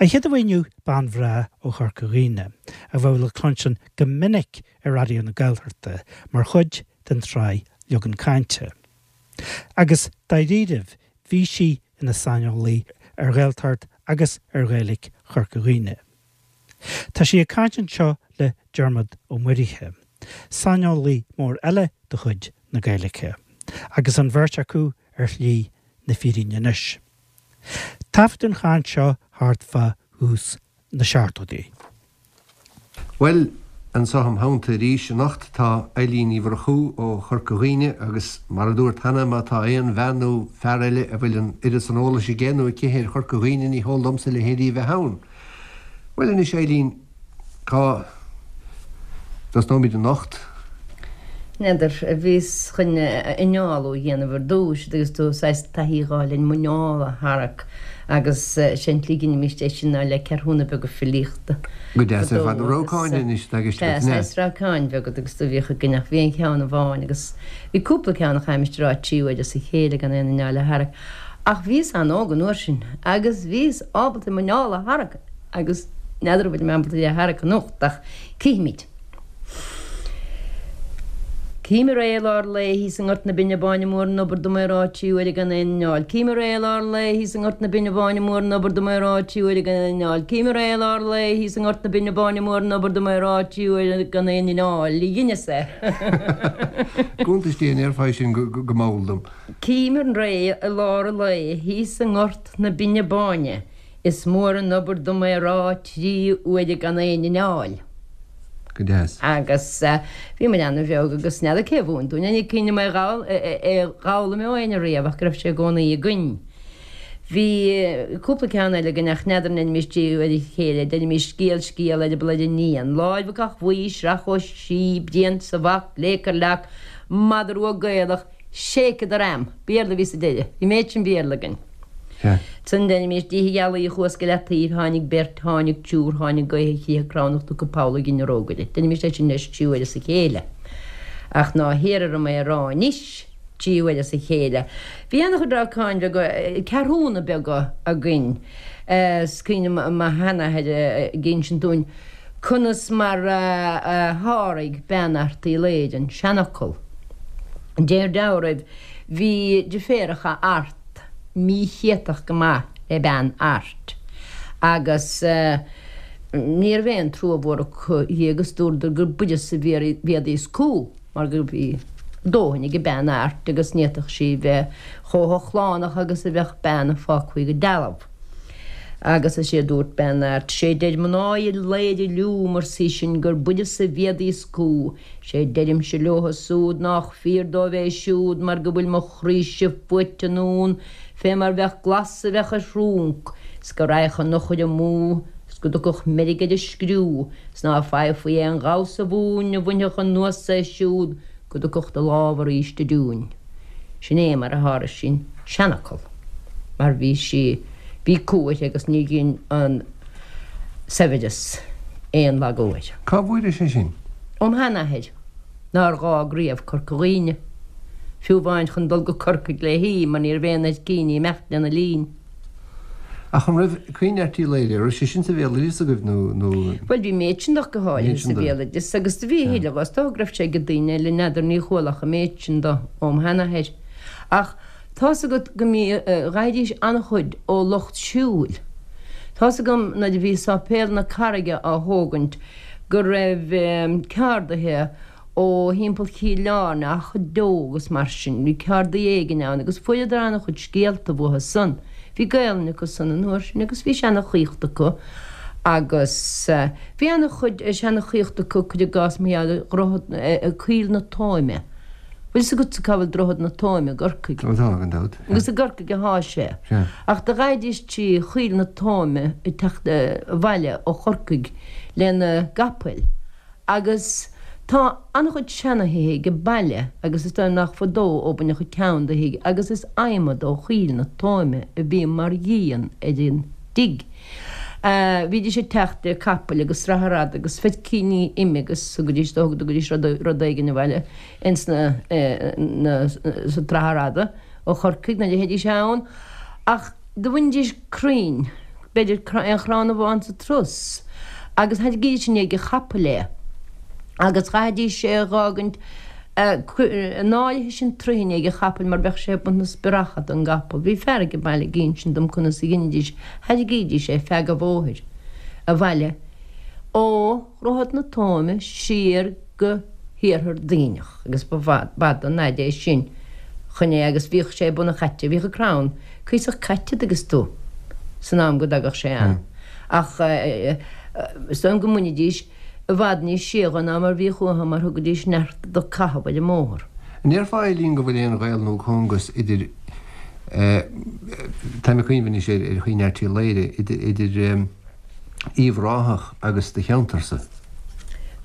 An chéad a bheidh inniu bean bhreá ó Chorca Dhuibhne, a bheadh le cluinstin go minic ar Raidió na Gaeltachta mar chuid den tsraith Leagan Cainte. Agus dáiríribh, bhí sí ina saineolaí ar Ghaeltacht agus ar Ghaeilge Chorca Dhuibhne. Tá sí ag caint anseo le Diarmuid Ó Muirithe, saineolaí mór eile de chuid na Gaeilge, agus an bheirt acu ar shlí na fírinne anois. Taifeadadh an chaint seo thart fá thús na seachtóidí. Bhuel, anseo im theannta arís anocht tá Eilín Ní Mhurchú ó Chorca Dhuibhne agus mar a dúrt cheana má tá aon bhean nó fear eile a bhfuil an oiread san eolais aige nó aici ar Chorca Dhuibhne ní heol domsa a leithéidí a bheith ann. Bhuel anois Eilín, cá dtosnóimid anocht? N'fheadar, bhíos chun innealú a dhéanamh ar dtús agus tú saghas taithí a dh'fháil ar an muineál a tharrac agus sé an tslí a dheinimíst é sin ná le ceathrúna beaga filíochta. Go deas ar fad, na rabhcáin anois atá i gceist agat, an ea? Sea, saghas rabhcáin bheaga agus do bhíodh againn ach bhí an cheann amháin agus bhí cúpla ceann a chaithfimis a rá trí huaire as a chéile gan aon inneall a tharrac ach bhíos an-óg an uair sin agus bhíos ábalta an muineál a tharrac agus n'fheadar an bhfuil mé ábalta é a tharrac anocht ach cífimid. Cím ar é i lár lae thíos i nGort na Binne Báine Mór an obair dom é rá trí huaire gan aon inneall. Cím ar é i lár lae thíos i nGort na Binne Báine Mór an obair dom é rá trí huaire gan aon inneall. Cím ar é i lár lae thíos i nGort na Binne Báine Mór an obair dom é rá trí huaire gan aon inneall. Dheineas é. Cuntas Dé an ndéarfá é sin go mall dom. Cím ar é i lár an lae thíos i nGort na Binne Báine Is mór an obair dom é rá trí huaire gan aon inneall. Go deas. Agus bhí muid ana-bheag agus n'fheadar cé a mhúin dúinn é, ní cuimhin liom é a dh'fhoghlaim ó éinne riamh ach go raibh sé i gcónaí againn. Bhí cúpla ceann eile againn ach n'fheadar an ndeinimís trí huaire a chéile, deinimís scéal scéal eireaball ar iníon, láimh ag bhuí, sraith ó sí, braon sa bhac, léic ar leac, madra rua Gaelach, shake the ram! Béarla a bhí sa deireadh. Bhí méid sin Béarla againn. Ansan deinimís Oíche Ghealaí chuas go Leataoibh, tháinig beirt, tháinig triúr, tháinig gaoth a chriathar cramhnach tugtha poll ag an rógaire. Deinimís é sin leis trí huaire as a chéile. Ach ná hiarr orm é a rá anois trí huaire as a chéile. Bhí ana-chuid rabhcáin bheaga, ceathrúna beaga againn. Is cuimhin liom mo sheanathair ag insint dúinn conas mar a sháraigh bean Airt Uí Laoghaire an seanfhocal. Deir dealraimh, bhí deirféaracha Art míchéatach go maith le bean Airt agus ní raibh aon trua mhór acu dhi agus dúradar gur b'uireasa a bhéadaí is cú mar go bhí dóthain ag bean Airt agus ní fhéadfadh sí bheith chomh hochlánach agus a bheadh bean a fágfaí go dealbh. Agus is é a dúirt bean Airt, 'Sé deir mná Uí Laoghaire liúm, arsa í sin, gur b'uireasa a bhéadaí is cú, 'Sé deirimse leotha súd nách fíor dóibh é siúd mar go bhfuil mo chroíse fuaite anonn fé mar bheadh glas a bheadh ar thrúnc, 's go raghadh an eochair amú, 's go dtiocfadh meirg ar an scriú, 's ná faighfí aon ghamhsa mhúin a bhainfeadh anuas é siúd go dtiocfadh do lámh arís aduain. Sin é mar a sháraigh sí an seanfhocal, mar bhí sí, bhí cumha uirthi agus ní dhein an saibhreas aon lagú air. Cá bhfuairis é sin? Óm sheanathair, nár dh'fhág riamh Corca Dhuibhne, fiú amháin chun dul go Corcaigh léi, mar ní raibh aon fheircíní imeacht lena linn. Ach an raibh Caoineadh Airt Uí Laoghaire, an raibh sé sin sa bhéaloideas agaibh nó, nó. Bhuel, bhí méid sin de go háirithe sa bhéaloideas agus do bhí a thuilleadh, is dócha go raibh sé ag daoine eile, n'fheadar, ní chuala ach an méid sin de óm sheanathair. Ach tá's agat go mbí, dh'fhaighidís an-chuid ó lucht siúil. Tá's agam nuair a bhí Sáipéal na Carraige á thógaint go raibh ceardaithe ó thimpeall Chill Airne, Achadh Deo agus mar sin. Bhí ceardaí éigin ann agus fuaireadar an-chuid scéalta uathu san. Bhí Gaelainn acu san an uair sin agus bhí seanachaíocht acu agus bhí an-chuid seanachaíocht acu, cuir i gcás mar gheall ar Dhroichead, Coill na Tóime. Bhfuil fhios agatsa cá bhfuil Droichead na Tóime i gCorcaigh? Ó tá, gan dabht. Agus i gCorcaigh athá sé. Sea. Ach do ghabhaidís trí Choill na Tóime ag teacht abhaile ó Chorcaigh lena gcapaill. Agus tá an-chuid seana-thithe ag an baile agus is dóigh nach fadó ó baineadh ceann de thigh agus is adhmad ó Choill na Tóime a bhí mar dhíon ar an dtigh. Bhídís ag teacht le capaill agus sraith fhada agus feircíní ime agus thugaidís, thugaidís rud éigin abhaile ins na, na, sa tsraith fhada ó Chorcaigh nuair a théidís ann. Ach do bhainidís crainn. b'fhéidir aon chrann amháin sa turas, agus thairrigídís i ndiaidh an chapaill é, agus chaithfidís é a dh'fhágaint in áirithe sin troigh i ndiaidh an chapaill mar bheadh sé ag baint na spreacha don gcapall. Bhí fear ag an baile ag insint dom conas a dheinidís, thairrigídís é feadh an bhóthair abhaile ó Dhroichead na Tóime siar go hiarthar Duibhneach agus ba bhfada an fhaid é sin chun é agus bhíodh sé ag bun an chaite, bhíodh an crann cuíosach caite dtuigeanns tú san am go dtagadh sé ann ach is dóigh liom go mbainidís i bhfad níos sia dho ná mar bhíodh uathu mar thugaidís neart do caitheamh ar an mbóthar. An ndéarfá Eileen go bhfuil aon ghaol nó cóngas idir, táim ag cuimhneamh anois ar Chaoineadh Airt Uí Laoghaire, idir Uíbh Ráthach agus do cheantarsa?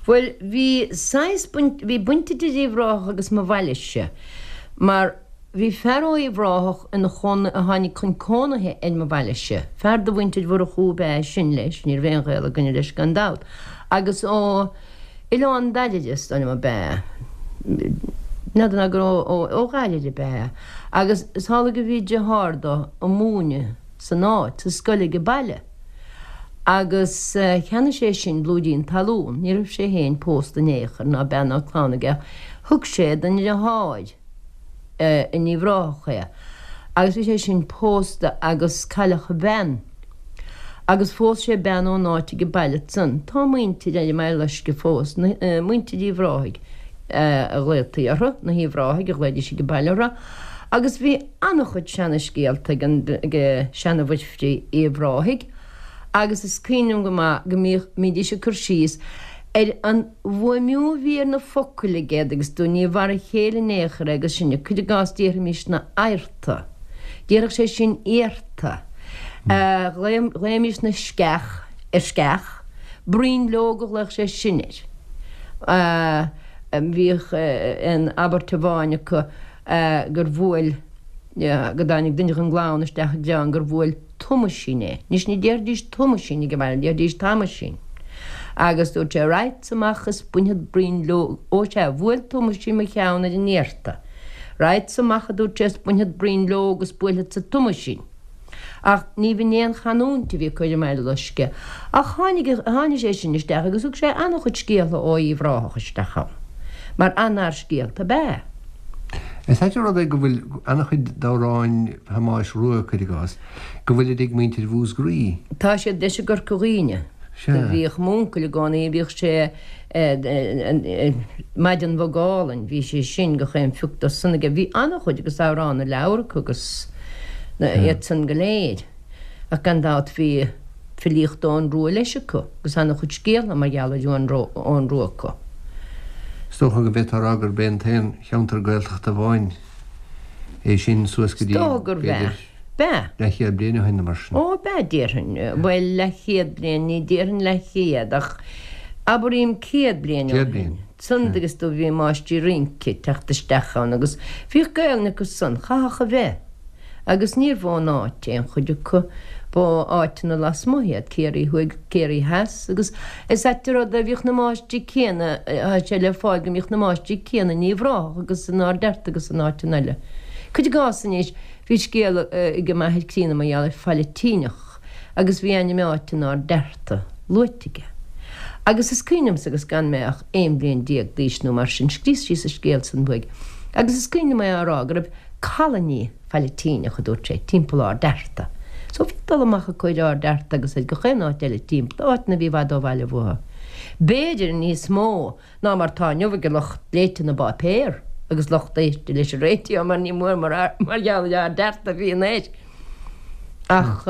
Bhuel, bhí saghas baint, bhí baint idir Uíbh Ráthach agus mo bhailese mar bhí fear ó Uíbh Ráthach ina chónaí, a tháinig chun cónaithe ar mo bhailese, fear de mhuintir Mhurchú ab ea é sin leis, ní raibh aon ghaol againne leis gan dabht, agus ó Oileán Dairbhre is dóigh liom ab ea é, n'fheadar ná gur ó Dhairbhre ab ea é, agus is amhlaidh go bhí deartháir dó ag múineadh san áit, sa scoil ag an baile. Agus cheannaigh sé sin blúirín talún, ní raibh sé féin pósta in aon chor, ná bean ná clann aige, ach thug sé don dheartháir in Uíbh Ráthach é. Agus bhí sé sin pósta agus cailleadh a bhean. Agus phós sé bean ón áit ag an baile ansan. Tá muintir ar an mBaile Loiscthe fós, muintir Uíbh Ráthaigh a ghlaotaí orthu, na hUíbh Ráthaigh a ghlaoidís ag an baile orthu. Agus bhí an-chuid seana-scéalta ag an ag seana-Mhuirfrí Uíbh Ráthaigh agus is cuimhin liom go maith go mbíodh mbídís ag cur síos ar an bhfuaimniú a bhí ar na focail aige agus do ní mhar a chéile in aon chor é agus sinne, cuir i gcás déarfaimisne adharta, déarfadh sé sin iarta, ghlaoimisne sceach ar sceach, bruinleog a ghlaodh sé sin air. Bhíodh aon abairt amháin acu gur bhuail, go dtáinig duine den gclann isteach i gcrann gur bhuail Tomaisín é. Anois ní déarfaidís Tomaisín ag an mbaile, déarfaidís Tamaisín. Agus dúirt sé, Raghadsa amach is bainfead bruinleog, ó sea, bhuail Tomaisín mo cheann ar an iarta. Raghadsa amach, a dúirt sé, is bainfead bruinleog is buailfeadsa Tomaisín. Ach ní bh'in é an chanúint a bhí acu ar an mBaile Loiscthe. Ach tháinig, tháinig sé sin isteach agus thug sé an-chuid scéaltha ó Uíbh Ráthach isteach ann, mar an-fhear scéalta ab ea é. Is ait an rud é go bhfuil an-chuid d'amhráin Thomáis Rua, cuir i gcás, go bhfuilid ag muintir Mhúscraí. Tá siad leis i gCorca Dhuibhne. Sea. Do bhíodh m'uncail i gcónaí, bhíodh sé Maidean Bhog Álainn, bhí sé sin gach aon phioc dó san aige. Bhí an-chuid agus Amhrán na Leabhar acu agus iad san go léir. Ach gan dabht bhí filíocht Eoghan Rua leis acu agus an-chuid scéaltha mar gheall ar Eoghan Rua acu. Is dócha go bhféadfá a rá gurb é an t-aon cheantar Gaeltachta amháin é sin suas go dtí, Is dócha gurbh ea. b'fhéidir, B'ea. leathchéad bliain ó shin nó mar sin. Ó, b'ea, déarfainn. Bhuel, leathchéad bliain, ní déarfainn leathchéad, ach abraím 100 bliain ó 100 shin. bliain, San sea. agus do bhí máistrí rince ag teacht isteach ann agus bhíodh Gaelainn acu san, chaithfeadh a bheith. Agus níorbh ón áit aon chuid acu, ba ó áiteanna lasmuigh iad, Ciarraí Thuaidh, Ciarraí Theas, agus is ait an rud é, bhíodh na máistrí céanna, tá sé le fáil go mbíodh na máistrí céanna in Uíbh Ráthach agus in Ard Fhearta agus in áiteanna eile. Cuir i gcás anois, bhí scéal ag m'athair críonna mar gheall ar Phailitíneach agus bhí ainm áite in Ard Fhearta luaite aige. Agus is cuimhin liomsa agus gan mé ach 11 bliain d'aois nó mar sin, scríos síos an scéal san uaidh, agus is cuimhin liom é á rá go raibh Colony Phailitíneach, a dúirt sé, timpeall Ard Fhearta. So bhí dul amach acu ar Ard Fhearta agus ar gach aon áit eile timpeall, áiteanna a bhí i bhfad ó bhaile uathu. B'fhéidir níos mó ná mar tá inniu ag lucht léite na bpáipéar agus lucht éiste leis an raidió mar ní mór mar gheall ar Ard Fhearta a bhíonn air. Ach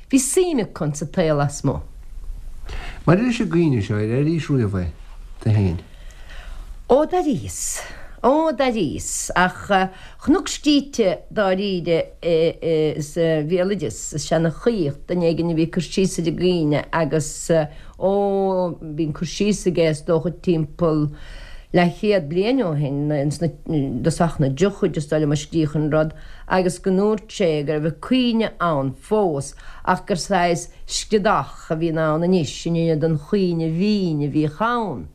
bhí suim acu insa tsaol lasmuigh. Maidir leis an gcaoineadh seo, ar airís riamh é, tú féin? Ó d'airíos. Ó d'airíos. Ach chonac scríte dáiríre sa bhéaloideas, sa seanchaíocht, duine éigin a bhí ag cur síos ar an gcaoineadh agus, ó, bhí an cur síos aige is dócha timpeall leathchéad bliain ó shin, ins na, i dtosach na dtríochaidí is dóigh liom a scríodh an rud, agus go ndúirt sé go raibh an caoineadh ann fós ach gur saghas scriodach a bhíonn ann anois in ionad an chaoineadh bhinn a bhíodh ann.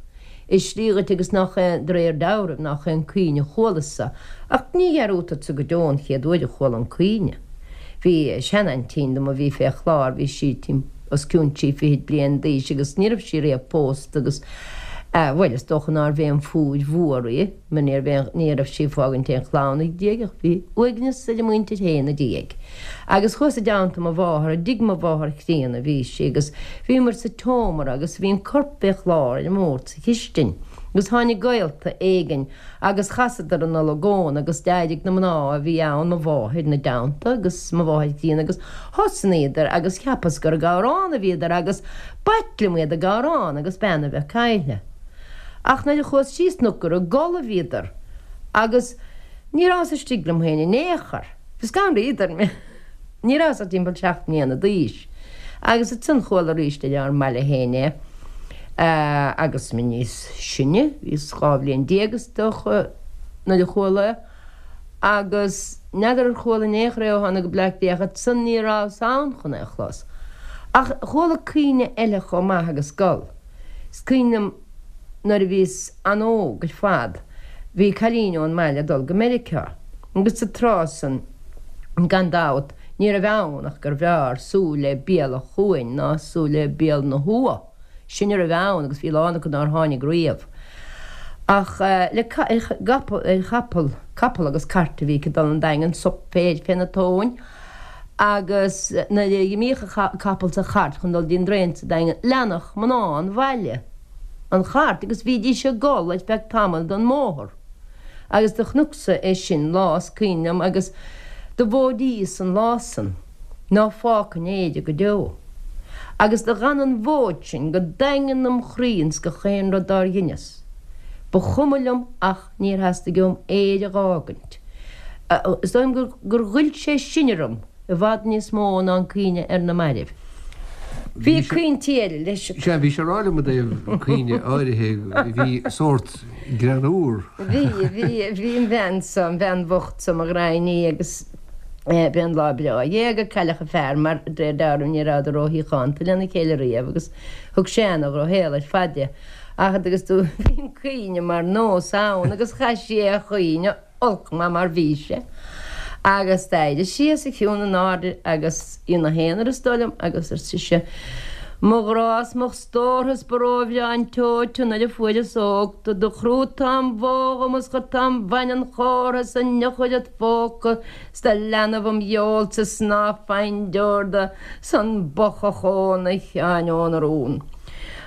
I slí dhuit agus nach é, de réir dealraimh, nach é an caoineadh a chualas-sa, ach ní dhearúdfadsa go deo an chéad uair a chuala an caoineadh. Bhí seanaintín dom a bhí fé chlár, bhí sí os cionn trí fichid bliain d'aois agus ní raibh sí riamh pósta agus, bhuel, is dócha nárbh aon phúir mhór í mar ní raibh aon, ní raibh sí ag fágaint aon chlann ina diaidh ach bhí uaigneas ar a muintir féin ina diaidh. Agus chuas i dteannta mo mháthar, i dtigh mo mháthar chríonna a bhí sí agus bhíomar sa tseomra agus bhí an corp fé chlár ar an mbord sa chistin agus tháinig gaolta éigin Agus chasadar an olagón agus d'éirigh na mná a bhí ann, mo mháthair 'na dteannta agus mo mháthair chríonna agus thosnaíodar agus cheapas gur ag amhrán a bhíodar agus b'ait liom iad ag amhrán agus bean a bheith caillte. Ach nuair a chuas síos chonac gur ag gol a bhíodar agus ní rabhas istigh liom féin in aon chor. Bhí scanraíodar mé. Ní rabhas ach timpeall seacht mbliana d'aois. Agus ansan chuala arís ar ár mbaile féin é agus mé níos sine, bhíos 12 bhliain is dócha nuair a chuala é, agus n'fheadar ar chuala in aon chor é ó tháinig go Bleá Cliath ach ansan ní rabhas ann chun é a chlos. Ach chuala caoineadh eile chomh maith agus gol. Is cuimhin liom nuair a bhíos an-óg ar fad, bhí cailín ón mbaile ag dul go Meiriceá agus sa tráth san, gan dabht, ní raibh ann ach gurbh fhearr súil le béal an chuain ná súil le béal na huath. Sin a raibh ann agus bhí a lán acu nár tháinig riamh. Ach le ar chapall, capall agus cairt a bhí aici ag dul 'on Daingean, sop féir féna tóin agus nuair a dh'imíodh an capall 's an chairt chun dul dtí'n dtraen sa Daingean, leanadh mná an bhaile an chairt agus bhídís ag gol ar feadh tamaill den mbóthar. Agus do chonacsa é sin lá is cuimhin liom agus do mhóidíos an lá san ná fágfainn Éire go deo. Agus do dh'fhan an mhóid sin go daingean im chroí ins gach aon rud dár dheineas. Ba chuma liom ach níor theastaigh uaim Éire dh'fhágaint. Is dóigh liom gur ghoill sé sin orm i bhfad níos mó ná an caoineadh ar na mairbh. Bhí caointí eile leis. Sea, bhís ag rá liom i dtaobh caoineadh áirithe, bhí sórt greannúr. Bhí, bhí, bhí an bhean so, an bhean bhocht so, mo ghraidhin í agus b'é an lá breá a éag a cailleadh a fear mar de réir dealraimh ní rabhadar róshíochánta lena chéile riamh agus thug sé ana-dhrochshaol ar fad di. Ach agus do bhí an caoineadh mar nós ann agus chaith sí é a chaoineadh olc maith mar bhí sé. Agus d'éirigh sí os a chionn in airde agus í 'na haonar is dóigh liom agus ar sise, Mo ghrá 's mo stórtha 's ba róbhreá an tseoid tu nuair a fuaireas óg tu do chrúigh tú an bhó dhom is chuir tú an bhaineann chomhartha 's an eochair id phóca 's do leanbh im gheolsa 's ná faighinn deor de 's an bothach ón a Sheáin ón rún.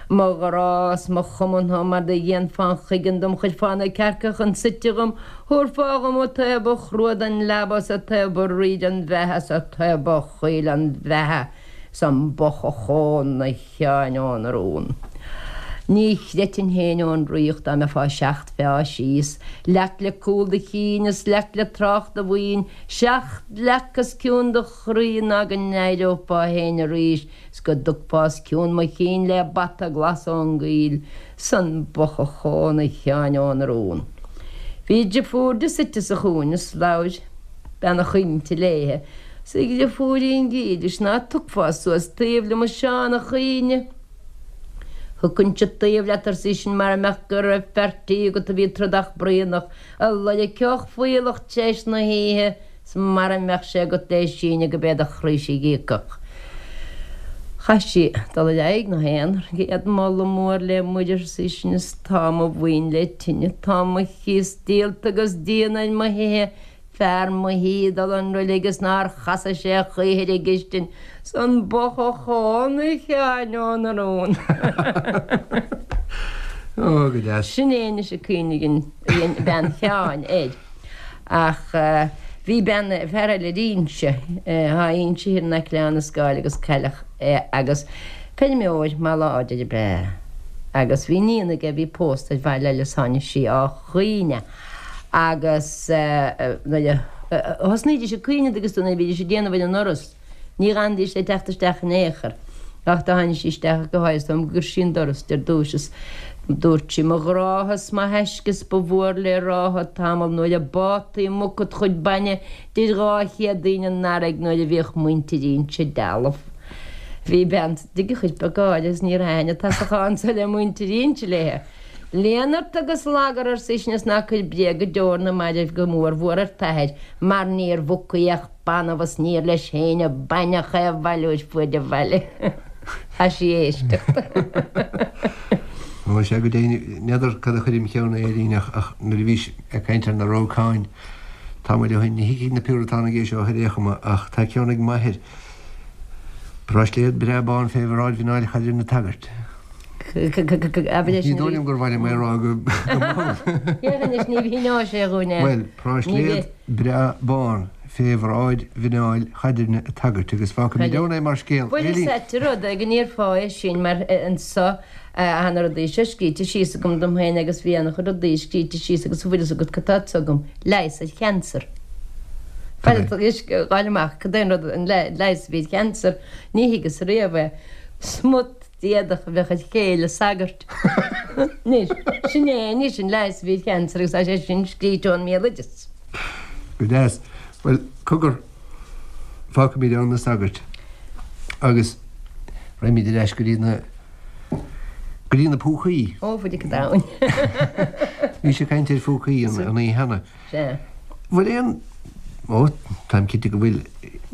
Mo ghrá 's mo chumantha mar do dhéanfá an chuigeann dom chuirfeá na cearca chun suite dhom thabharfá dhom an taobh ba chrua den leaba 's an taobh ba rí den bheatha 's an taobh ba chaoile den bheatha 's an bothach ón a Sheáin ón rún. Ní chreidfinn féin ón ríocht dá mbeifeá seacht feá síos, leac le cúl do chinn is leac le trácht do bhoinn, seacht leac os cionn do chroí ná go n-éireofá féin arís 's go dtugfá os cionn mo chinn le bata glas ón gcoill 's an bothach ón a Sheáin ón rún. Bhí driofúr di suite sa chúinne 's labhair bean a' chaointe léithe 's a dhriofúirín dhílis ná tugfá suas taobh liom a Seán a' chaoineadh. Thiocfainnse taobh leat arsa í sin mara mbeadh go raibh fear tí agat a bhí trodach braonach a loirgfeadh fuíollach t'réis na hoíche 's mara mbeadh sé agat lé síneadh go b'é do chroíse a dh'íocfadh. Chaith sí dul ar aghaidh 'na haonar. Céad moladh mór le Muire, arsa í sin, is tá mo mhaoin le tine, tá mo chíos díolta agus díon ar mo thithe, fear mo thí ag dul 'on roilig is nár chasa sé choíche ar an gcistin, 's an bothach ón a Sheáin ón rún. Ó, go deas. Sin é anois an caoineadh a dhein bean Sheáin air. Ach bhí bean, fear eile ar Inse, thá Inse thiar in aice le Abhainn an Scáil agus cailleadh é agus feirmeoir maith láidir ab ea é. Agus bhí iníon aige a bhí pósta ar bhaile eile is tháinig sí á chaoineadh agus nuair a thosnaídís ag caoineadh agus nuair a bhídís ag déanamh ar an ndoras, Ní dh'fhanaidís le teacht isteach in aon chor. Ach do tháinig sí isteach go háirithe dom gur sí an doras ar dtúis is dúirt sí, Mo ghrádha 's mo thaisce 's ba mhór le rádha tamall nuair a bátaí muc id chuid bainne 'dir 200 daoine an fharraige nuair a bhíodh muintir Inse dealbh. Bhí bean sa tigh a chuirfeadh gáire is ní raibh aithne tasachán so le muintir Inse léithe. Léan ort agus lagar, ar seisean, is ná cuir bréag go deo ar na mairbh go mór mhór ar t'athair, mar níor mhucaí ach banbh is níor leis féin a baineadh é a bhailiú ar fuaid an bhaile. Tá sí ag éisteacht. Ó, sea, go deimhin, n'fheadar cad a chuir im cheann é, a Eileen, ach nuair a bhís ag caint ar na rócáin tamall ó shin, ní thuigfidh na Piúratánaigh é seo ar aon chuma, ach tá ceann ag m'athair, Práisléad breá bán fé bhráid mhuineáil Chaidrimh an tsagairt. Ní dóigh liom gur mhaith liom é a rá go mall. Féach anois, ní mhíneoidh sé dhúinn é. Bhuel, práisléad breá bán fé bhráid mhuineáil Chaidrimh an tsagairt agus fágfaimid ann é mar scéal. Bhuel, is ait an rud é go ndéarfá é sin mar anso tá na rudaí seo scríte síos agam dom féin agus bhí an-chuid rudaí scríte síos agus an bhfuil fhios agat cad tá anso agam, leigheas ar chancer. Bhuel, gabháil amach, cad é an rud, an leigheas a bhí ar chancer, ní thuigeas riamh é. Smut. d'éadach a bheadh ar chéile sagairt. Anois, sin é anois an leigheas a bhí ar chancer agus tá sé sin scríte ón mbéaloideas. Go deas. Bhuel, cogar, fágfaimid ann na sagairt agus raghaimid ar ais go dtí na, go dtí na púcaí. Ó, a Mhuire Domhain. Bhís ag caint ar phúcaí an oíche cheana. Sea. Bhfuil aon, ó, táim cinnte go bhfuil,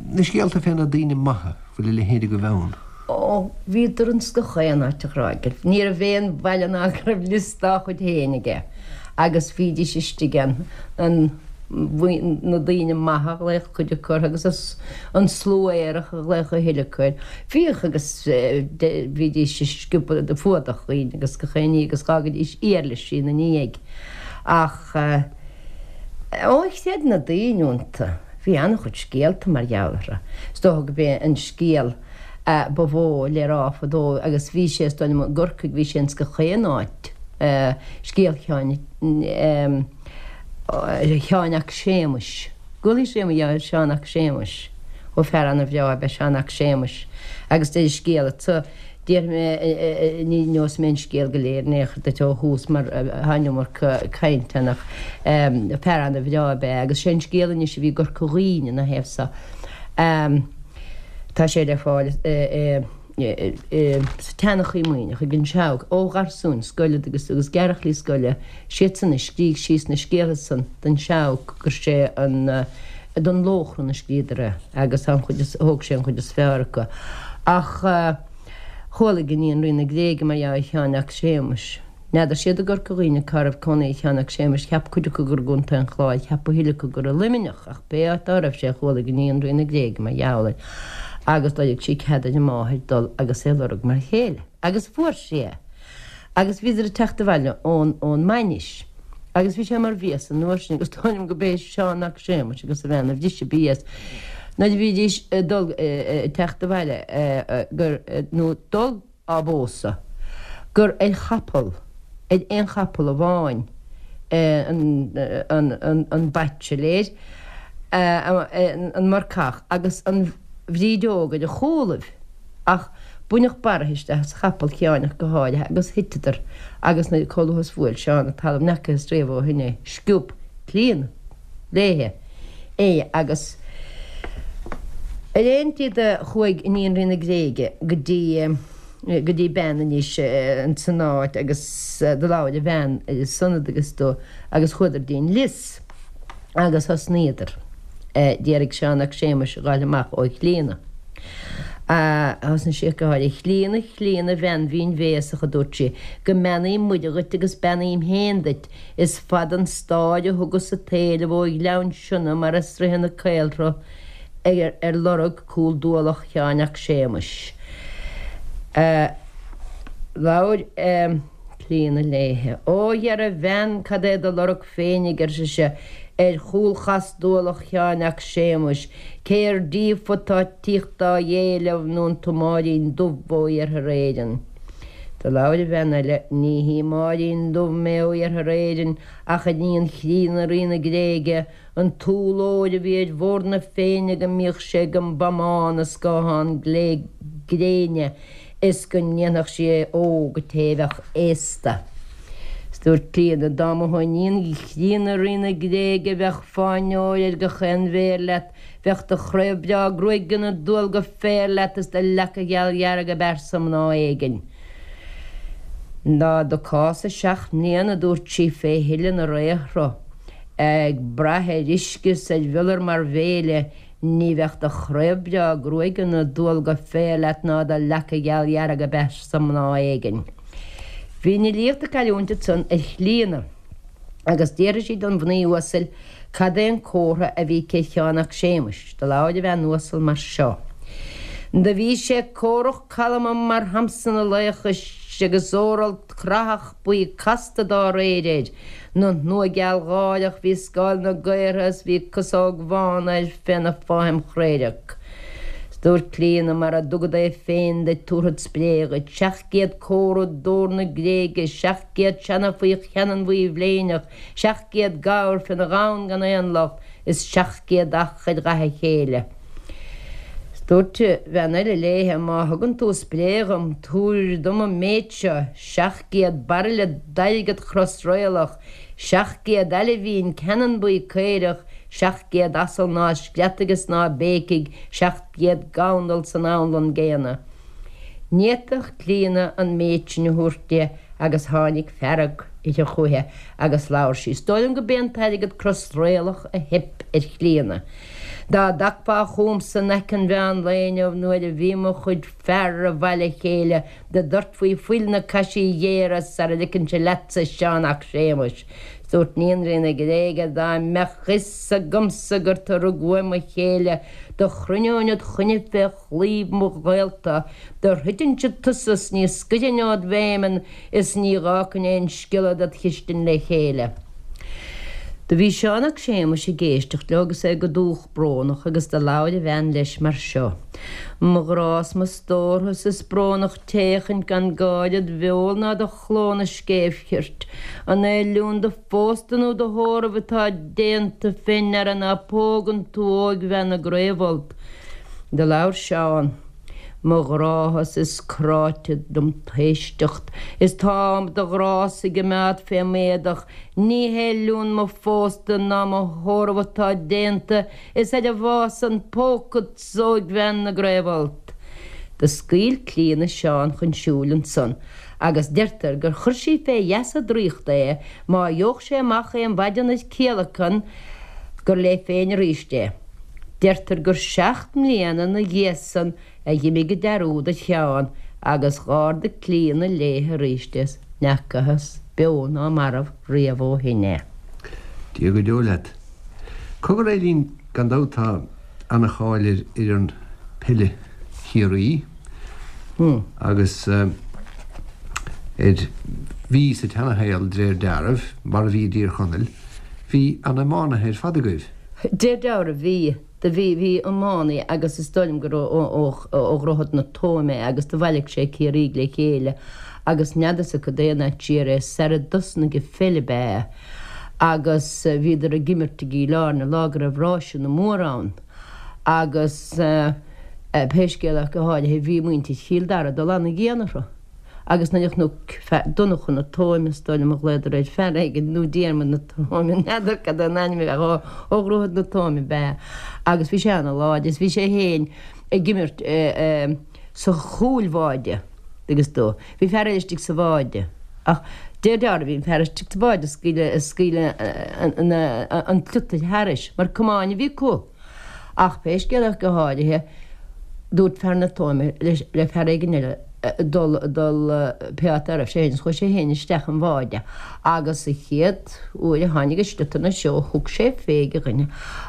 na scéalta fé na daoine maithe. Bhfuil a leithéid agaibh ann? Ó, bhíodar ins gach aon áit a Ghráig. Ní raibh aon bhaile ná go raibh liosta dá chuid féin aige agus bhídís istigh ann, an, na daoine maithe a ghlaodh cuid acu orthu agus an slua aerach a ghlaodh a thuilleadh acu air. Bhíodh agus bhídís ag sciobadh, ag fuadach dhaoine agus gach aon ní agus dh'fhágaidís iarlaisí ina ndiaidh. Ach, ó, chreid na daoine iontu. Bhí an-chuid scéalta mar gheall orthu. Is dócha gurb é an scéal ba mhó le rá fadó, agus bhí sé, is dóigh liom, i gCorcaigh, bhí sé ins gach aon áit, scéal Sheáin, Sheáin 'ac Séamuis. Gcualaís riamh mar gheall ar Sheán 'ac Séamuis? Ó, fear an-bhreá ab ea Seán 'ac Séamuis. Agus deir an scéal anso, Déarfaidh mé, ní neosfaidh mé an scéal go léir in aon chor duit ó thús mar tá an iomarca cainte ann ach fear ana-bhreá ab ea agus sé an scéal anois a bhí i gCorca Dhuibhne ina thaobh so. Tá sé le fáil sa tSeanchaí Muimhneach ag an Seabhac ó gharsúin scoile agus agus gearrchailí scoile, siadsan a scrígh síos na scéaltha san don Seabhac gur sé an don Lóchrann a scríodar é agus tá an chuid is, thóg sé an chuid is fearr acu. Ach chualaidh iníon Rí na Gréige mar gheall ar Sheán 'ac Séamuis. N'fheadar siad i gCorca Dhuibhne cá raibh cónaí ar Sheán 'ac Séamuis, cheap cuid acu gur i gContae an Chláir, cheap a thuilleadh acu gur i Luimneach, ach pé áit dá raibh sé chualaidh iníon Rí na Gréige mar gheall air agus d'fhoiligh sí cead ar a máthair dul agus é lorg mar chéile. Agus fuair sí é. Agus bhíodar ag teacht abhaile ón, ón mbainis. Agus bhí sé mar bhios an uair sin agus dóigh liom go b'é Seán 'ac Séamuis agus a bhean a bhris an bias nuair a bhídís ag dul, ag teacht abhaile gur, nó dul á bpósadh, gur ar chapall, ar aon chapall amháin an, an, an, an baitsiléir, an marcach agus an bhrídeog ar a chúlaibh. Ach baineadh barraithe isteach as chapall Sheáin ach go háirithe agus thiteadar agus nuair chomh luath is bhuail Seán an talamh n'fheacathas riamh ó shin é. Sciob Clíodhna léithe é agus ar aon tslí do chuaigh iníon Rí na Gréige go dtí go dtí bean anois ins an áit agus do labhair an bhean ar a son agus do agus chuadar dtí'n lios agus thosnaíodar. D'iarraidh Seán 'ac Séamuis a ghabháil amach ó Chlíodhna. Thosnaigh sí ag gáire. A Chlíodhna, a Chlíodhna, a bhean mhín bhéasach, a dúirt sí, go mbeannaí Muire dhuit agus beannaím féin duit. Is fada an stáir a thugas an t-éileamh ó Ghleann Sionna mar a sroicheann an caolshruth ar lorg cúl dualach Sheáin 'ac Séamuis. Labhair. Clíodhna léithe. Ó, dhera, a bhean, cad é do lorg féinig, ar sise, ar chúl chas dualach Sheáin 'ac Séamuis, cé ar díofa atá tíocht dá éileamh nó an tú Máirín Dubh ó Iarthar Éireann? Do labhair an bhean eile, Ní hí Máirín Dubh mé ó Iarthar Éireann, ach iníon Chlíodhna Rí na Gréige, An t-úll óir a bhí ar bhord na Féinne go mbíodh sé ag an bpamán i scáthán glé gréine is go ndéanfadh sí é óg an té a bheadh aosta. Is dúirt Clíodhna, dá mba thú iníon chríonna Rí na Gréige bheadh fáinne óir ar gach aon mhéar leat, bheadh do chraobh breá gruaige ina dual go féar leat is do leaca gheal dhearg ab fhearsa mná éigin. Dá dtiocfása 7 mbliana, a dúirt sí, fé thuile na raothra, ag brath ar uisce is ar mhiolar mar bhéile, ní bheadh do chraobh breá gruaige ina dualga féir leat ná do leaca gheal dhearg a beas-sa mná éigin. Bhí an fhilíocht ag cailliúint ansan ar Chlíodhna agus d'fhiafraigh sí don mhnaoi uasail cad é an comhartha a bhí aici ar Sheán 'ac Séamuis. Do labhair an bhean uasal mar seo. Do bhí sé córach calma mar Shamson a laochais agus óralt creathach buí casta dá réir air, 'na shnua gealgháireach bhí scáil na gaortha is bhí casóg bhán air féna fáithim chraorac. 'S dúirt Clíodhna mara dtugad é féin duit tabharfad spré dhuit, 700 comhartha d'ór na Gréige, 700 seana faoi cheannann bhuí bhléineach, 700 gabhar féna ghamhain gan aon locht, is 700 each ar dhath a chéile. 'S dúirt bean eile léithe, Má thugann tú spré dhom, tabhair dom an méid seo, 700 bairille d'airgead chrosraolach, 700 aille mhín ceannann buí caorach, 700 asal ná screadfaidh is ná béicfidh, 700 gandal san anlann gcéanna. Ní fhéadfadh Clíodhna an méid sin a thabhairt di agus tháinig fearg uirthi chúiche agus labhair sí. Is dóigh liom go b'é an t-airgead crosraolach a theip ar Chlíodhna. Dá dtagfá chugamsa in aice an mheán lae inniu nuair a bhí mo chuid fear i bhfail a chéile do dhoirtfí fuil na caisí géara sara ligfinnse leatsa Seán 'ac Séamuis. 'S dúirt Níon Rí na Gréige dá mbeadh fhios agamsa gur tu rug uaim mo chéile do chruinneoinn id choinne fé chlaíomh mo ghaolta, do throidfinnse tusa 's ní scoirfinn ód bhfeamainn is ní dh'fhágfainn aon sciolla ded chistin le chéile. Do bhí Seán 'ac Séamuis ag éisteacht leo agus é go dúch brónach agus do labhair a bhean leis mar seo, Mo ghrá 's mo stórtha 's is brónach t'fhéachaint gan gáire id bheul ná do chló 'na scéimh chirt. An é liún do phósta nó do thórraimh atá déanta fé ndeara ná pógann tú óigbhean na gCraobh-Fholt? Do labhair Seán, Mo ghrádha 's is cráite dom t'éisteacht, is tá do ghrá-sa ag imeád fé m'éadach, ní hé liún mo phósta ná mo thórramh atá déanta, is ar an bhfáth san pógfadsa óigbhean na gCraobh-Fholt. Do scaoil Clíodhna Seán chun siúil ansan, agus deirtear gur chuir sí fé gheasa draíochta é má gheobhadh sé amach aon mhaidean ar ciallacan gur léi féin aríst é. Deirtear gur 7 mbliana 'na dhiaidh san a dh'imigh an dearúd ar Sheán agus dh'ardaigh Clíodhna léithe aríst é 's n'fheacathas beo ná marbh riamh ó shin é. Dia go deo leat. Cogar Eileen, gan dabht tá ana-cháil ar fhoireann peile Chiarraí agus ar bhí sa tseanashaol de réir dealraimh, mar a bhí i dTír Chonaill, bhí ana-iománaithe ar fad agaibh. De réir dealraimh bhí, do bhí, bhí iománaí agus is dóigh liom gur ó, ó, ó Dhroichead na Tóime é agus do bhailigh sé Ciarraígh le chéile agus n'fheadarsa cad é an áit siar é, sar a dtosnaigh an pheil ab ea é agus bhíodar ag imirt i gCill Airne lá go raibh ráiseanna móra ann agus pé scéal ach go háirithe bhí muintir Chill Dara ag dul ana-dhian orthu. Agus nuair a chonac fear, Donnchadh na Tóime is dóigh liom a ghlaodar air, fear éigin, nó Diarmaid na Tóime, n'fheadar cad é an ainm a bheadh, ó, ó Dhroichead na Tóime ab ea. Agus bhí sé ana-láidir, is bhí sé féin ag imirt sa chúlbháide, agus do, bhí fear eile istigh sa bháide. Ach de réir dealraimh bhí an fear istigh sa bháide ag scaoileadh, ag scaoileadh an tsliotair thairis, mar camáin a bhí acu. Ach pé scéal é ach go háirithe, dúirt fear na Tóime le fear éigin eile dul, dul pé áit a raibh sé féin, is chuaigh sé féin isteach an bháide agus sa chéad uair a tháinig an sliotar ina threo thug sé fé ag a dhuine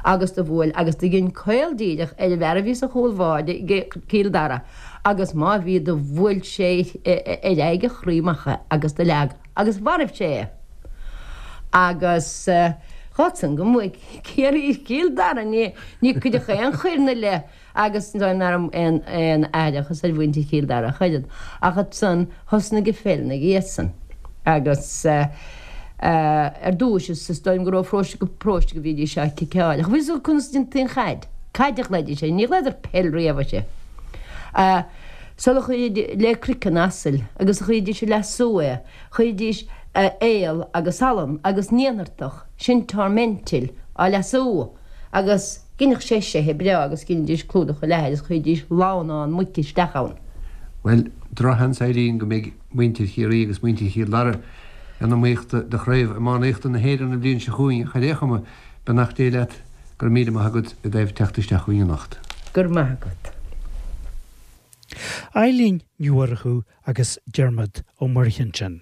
agus do bhuail agus do dhein caol díreach ar an bhfear a bhí sa chúl bháide ag Cill Dara agus má bhí do bhuail sé ar aghaidh a chroí amach é agus do leag agus mharbh sé é agus dh'fhág san go mbuaigh Ciarraí Cill Dara ní cuireadh aon choir 'na leith agus nach raibh aon aithreachas ar mhuintir Chill Dara ach oiread ach ansan thosnaigh an pheil 'na dhiaidh san agus ar dtúis is dóigh liom gur ó pharóiste go paróiste go bhídís á ciceáil ach bhí fhios acu conas a déantaí an chaid, caid a ghlaoidís air, ní ghlaodar peil riamh uirthi. Sula chuiridís le croiceann asail agus a chuiridís ag leasú é, chuiridís aol agus salann agus naonartach, sin tormentil, á leasú agus dheineadh sé seithe breá agus dheinidís clúdach leathair is chuiridís lamhnán muice isteach ann. Bhuel, drochsheans, Eileen, go mbeidh muintir Chiarraí agus muintir Chill Dara in iomaíocht do chraobh iománaíochta na hÉireann an bhliain seo chugainn ach ar aon chuma, beannacht Dé leat, go raibh míle maith agat i dtaobh teacht isteach chugainn anocht. Go raibh maith agat. Eilín Ní Mhurchú agus Diarmuid Ó Muirthile ansin.